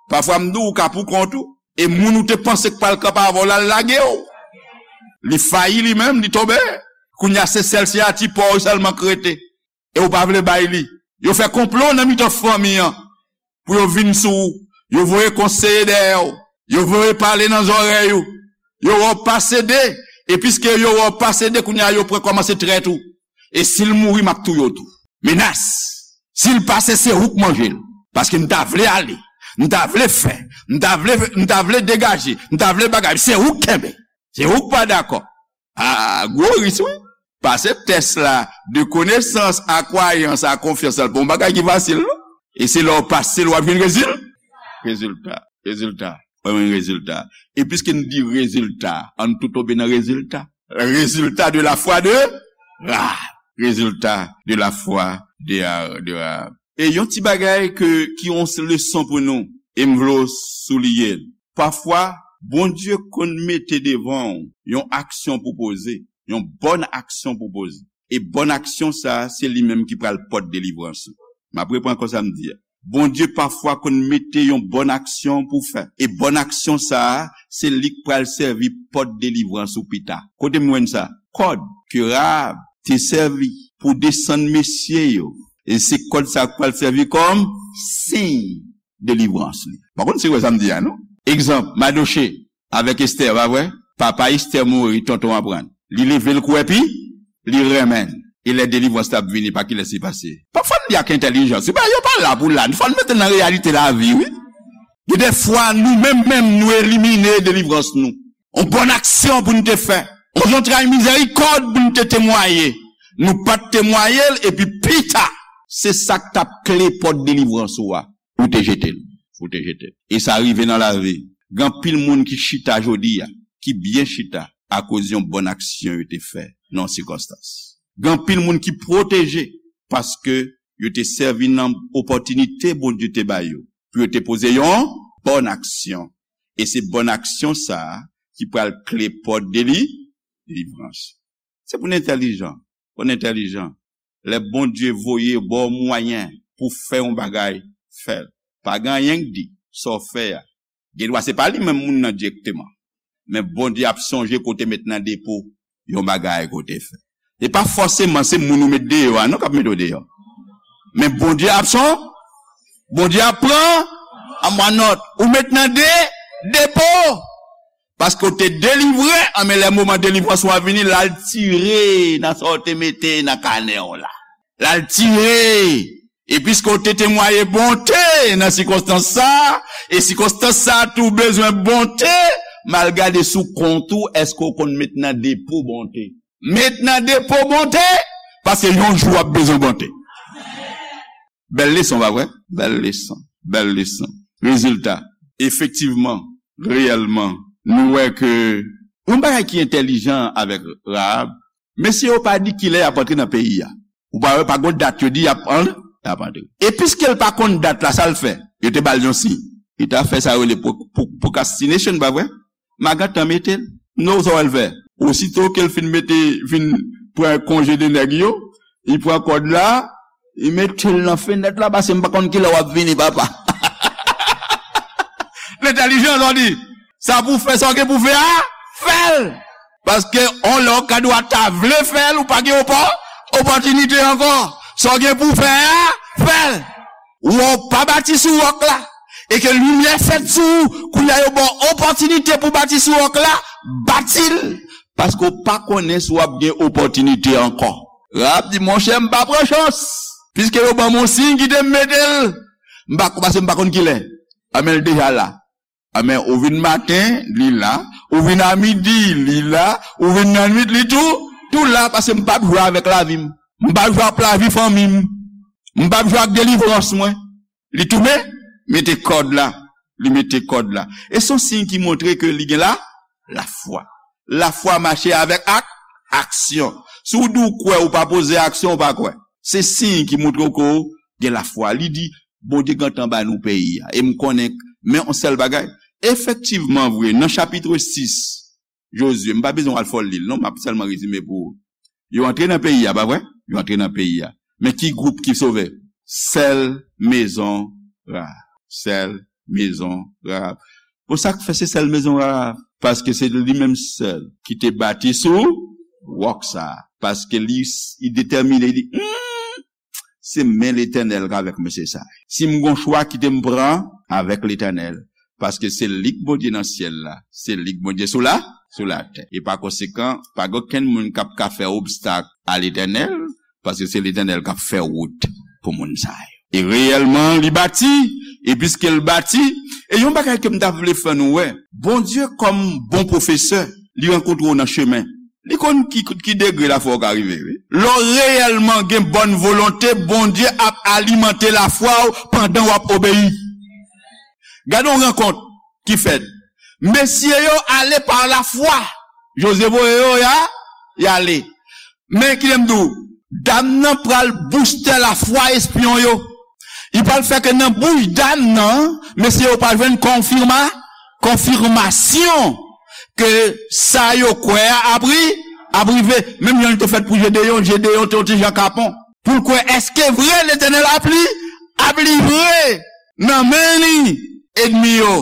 Pafwa m di w, ou ka pou kont ou. E moun ou te panse k pral kanpe avè w la, l lage w. Li fayi li menm, li tonbe. Kounye a, se sèl siyati pa w sèlman k rete. E ou pa vle bay li. Yo fè konplo nan mitan fanmi an pou yo vin sou ou. Yo voye konseye dèyè w. Yo voye pale nan zòrèy ou. Yo wè w pa sede. E piske yo wè w pa sede, kounye a yo pran kòmanse trèt ou. E si l mouri, m ap touye w tou. Menas. Si l pase, se ou k manje l. Paske m ta vle ale. M ta vle fè. M ta vle, m ta vle degaje. M ta vle bagay. Se ou k kenbe. Se ou k pa dakò. A, gwo risk, wi. Pase tès la, de konesans a kwayans a konfyans la, pa yon bagay ki fasil, non. E se lè w pase l, w ap jwenn rezil-, rezilta. Rezilta. W ap jwenn rezilta. E piske n di rezilta, ann tou tonbe nan rezilta. Résultat de la foi de, ah, résultat de la foi de, de, e yon ti bagay ke, ki yon leson pou nou, e m vle w souliye l. Pafwa, Bondye konn mete devan w yon aksyon pou poze, yon bòn aksyon pou poze. E bòn aksyon sa a, se li menm ki pral pòt delivrans ou. M ap reprann ankò sa m di a. Bondye pafwa konn mete yon bòn aksyon pou fè. E bòn aksyon sa a, se li k pral sèvi pòt delivrans ou pita. Kote m jwenn sa? Kòd ke Rahab te sèvi pou desann mesye yo. E se kòd sa a k pral sèvi kòm siy delivrans li. Pa konn si w wè sa m di a, non? Egzanp, Madoche avèk Estè, pa vre? Papa Estè mouri, tonton aprann. Li leve l kou epi li renmen l. E lè delivrans la ap vini, pa kilès li pase? Pafwa n li ak entèlijans. Se pa, yo pa la pou la. Fò n mete nan reyalite lavi, wi. Gen de fwa, nou menm menm, nou elimine delivrans nou. On bòn aksyon pou n te fè. On zantray mizèrikòd pou n te temwaye. Nou pa t temwaye l, epi pita, se sa k t ap kle pòt delivrans ou a. Ou te jete l. Ou te jete l. E sa rive nan lavi. Gen anpil moun ki chita jodi a, ki byen chita, akoz yon bòn aksyon yo te fè nan yon sikonstans. Gen anpil moun ki pwoteje paske yo te sèvi nan opòtinite Bondye te ba yo. pou yo te poze yon bòn aksyon. E se bòn aksyon sa a ki pral kle pòt deli, delivrans. Se pou n entèlijan. Pou n entèlijan. Lè Bondye voye ba w mwayen pou fè yon bagay, fè l. Pa gen anyen k di, sa w fè a. Gen dwa se pa li menm moun nan dirèkteman. Men Bondye ap sonje kote met nan depo yon bagay kote fè. E pa fòseman se moun ou met deyò a non k ap mete w deyò. Men Bondye ap son, Bondye ap pran an mwa nòt. Ou met nan de, depo. Paske w te delivre, anmen lè moman delivrans ou a vini, l al tire nan sa w te mete nan kanè w la. L al tire. E piske w te temwaye bonte nan sikonstans sa a, e sikonstans sa a tou bezwen bonte, m al gade sou kont ou, èske w konn met nan depo bonte? Met nan depo bonte, paske yon jou w ap bezwen bonte. Bèl leson, pa vre? Bèl leson. Bèl leson. Rezilta, efektivman, reyèlman, nou wè ke yon bagay ki entèlijan avèk Rahab, mesye yo pa di kilè y ap antre nan peyi a. Ou pa wè, pa gon dat yo di y ap an-, y ap antre. E piske l pa konn dat la, sa l fè? Yo te ba l yon siy. Li ta fè sa yo rele pro-, pro-, procrastination, pa vre? M a gentan mete l. Non, sa w al fè? Osito ke l fin mete, fin pran konje de nèg yo, li pran kòd la, li mete l nan fenèt la, paske m pa konn kilè w ap vini, papa. L entèlijan, sa w di. Sa pou fè, sa w gen pou fè a, fè l. Paske on lè w ka dwa ta vle fè l, ou pa gen opò-, opòtinite ankò. Sa w gen pou fè a, fè l. Ou pa bati sou wòk la. E ke limyè fèt sou ou, kounye a yo ba w opòtinite pou bati sou wòk la, bati l. Paske w pa konnen si w ap gen opòtinite ankò. Rahab di, monchè, m pa pran chans. Piske yo ban m yon siy, kite m mete l. M pa, paske m pa konn kilè. Anben, l deja la. Anben, ou vin maten, li la. Ou vin a midi, li la. Ou vin nan nwit, li tou, tou la, paske m p ap jwe avèk lavi m. M p ap jwe ak lavi fanmi m. M p ap jwe ak delivrans mwen. Li tounen, mete kòd la. Li mete kòd la. E se yon siy ki montre ke li gen la, lafwa. Lafwa mache avèk ak, aksyon. Si w di w kwè, ou pa poze aksyon, ou pa kwè. Se siy ki montre w ke w gen lafwa. Li di, Bondye gentan ba nou peyi a. E m konnen, men yon sèl bagay. Efektivman vre, nan chapit sis, Jozye, m pa bezwen w al fò l li l, non, m ap sèlman rezime pou ou. Yo antre nan peyi a, pa vre? Yo antre nan peyi a. Men ki gwoup ki sove? Sèl mezon Rahab. Sèl mezon Rahab. Bon, sa k fè se sèl mezon Rahab? Paske se li menm sèl ki te bati sou wòk sa a. Paske li, li detèmine, li di, hmm, se men Letènèl k avèk mesye sa a. Si m gon chwa, kite m pran avèk Letènèl. Paske se li k Bondye nan syèl la, se li k Bondye sou la, sou latè. E pa konsekan, pa gen okenn moun k ap ka fè obstak a Letènèl, paske se Letènèl k ap fè wout pou moun sa yo. E reyèlman, li bati, e piske l bati, e yon bagay ke m ta vle fè nou wè, Bondye kòm bon pwofesè, li rankontre w nan chemen. Li konn ki, ki degre lafwa w ka rive, wi. Lè w reyèlman gen bòn volonte, Bondye ap alimante lafwa w pandan w ap obeyi. Gade yon rankont ki fèt. Mesye yo ale pa lafwa. Jozye voye yo, y a, y ale. Men, kite m di w, dam nan pral bouste lafwa espyon yo. Li pral fè ke nan bouch dam nan, mesye yo pral jwenn konfima-, konfimasyon ke sa yo kwè a ap ri-, ap rive. Menm jan li te fèt pou Jedeyon, Jedeyon te yon ti jan kapon. Pou l kwè, èske vre Letènèl ap li-, ap livre nan men li enmi yo?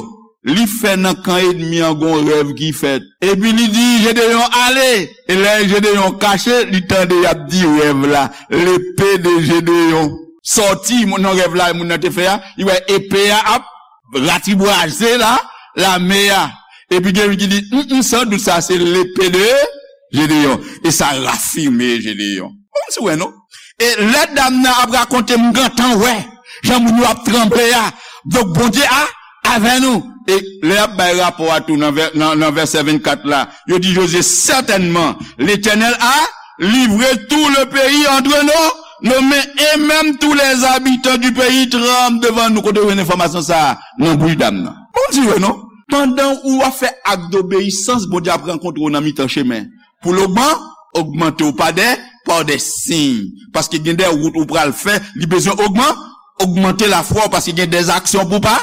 Li fè nan kan enmi an gon rèv ki fèt. Epi li di Jedeyon, ale. E lè Jedeyon kache, li tande y ap di rèv la, l'épée de Gédéon. Sòti, moun nan rèv la, moun nan te fè a, li wè epe a ap ratibwaze la, lame a. Epi gen youn ki di, mm, mm, san dout sa se l'épée de Gédéon. E sa rafime Jedeyon. Bon, si w wè non. E lè dam nan ap rakonte, m gentan wè jan moun yo ap tranble a. Donk, Bondye a avè nou. E lè y ap bay rapò a tou nan vè-, nan, nan vèsè vennkat la, yo di Jozye, certainement, l'Éternel a livré tout le pays entre nos, nos mains, et même tous les habitants du pays tremblent devant nous. Kote w jwenn enfòmasyon sa a? Nan bouch dam nan. Bon, si w wè non. Pandan ou ap fè ak dobeyisans, Bondye ap rankontre w nan mitan chemen. Pou l ogman-, ogmante w pa dè, pa dè siy. Paske gen de wout ou pral fè, li bezwen ogman-, Ogmante lafwa w, paske gen dèzaksyon pou pa,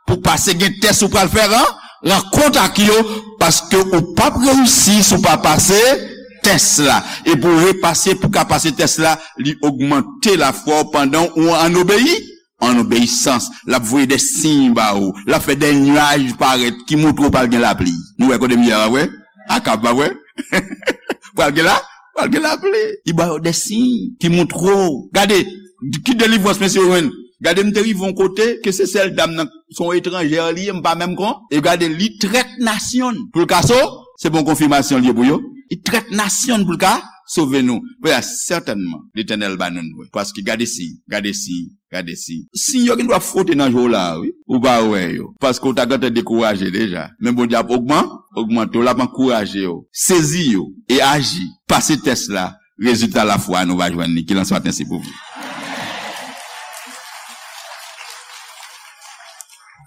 pou pase, gen tès ou pral fè ran, rankont ak yo, paske ou p ap reyisi si w pa pase tès la. E pou repase, pou ka pase tès la, li ogmante lafwa w pandan ou an obeyi, an obeyisans. L ap voye de siy ba ou, l ap fè de nyaj parèt ki montre w pral gen lapli. Nou wè kote m ye a, pa vre? Akab, pa vre? Pral gen la, pral gen lapli. Li ba yo de siy ki montre w. Gade, ki delivrans mesye yo jwenn. Gade, m te rive yon kote ke se sèl dam nan, se yon etranjè li ye, m pa menm kon. E gade, li trèt nasyon pou l ka so, se bon konfimasyon li ye pou yo. Li trèt nasyon pou l ka sove nou. Pè a, sètènman, Letènèl ba nou nou. Paske gade siy, gade siy, gade siy. Siy yo gen dwa fwote nan je w la, wi. Ou pa wè yo. Paske w ta gentan dekouraje deja. Men Bondye ap ogman, ogmante w, l ap ankouraje w. Sezi yo e aji. Pase tès la. Rezilta lafwa nou va jwenn li. Ki lanswa tensi pou vou.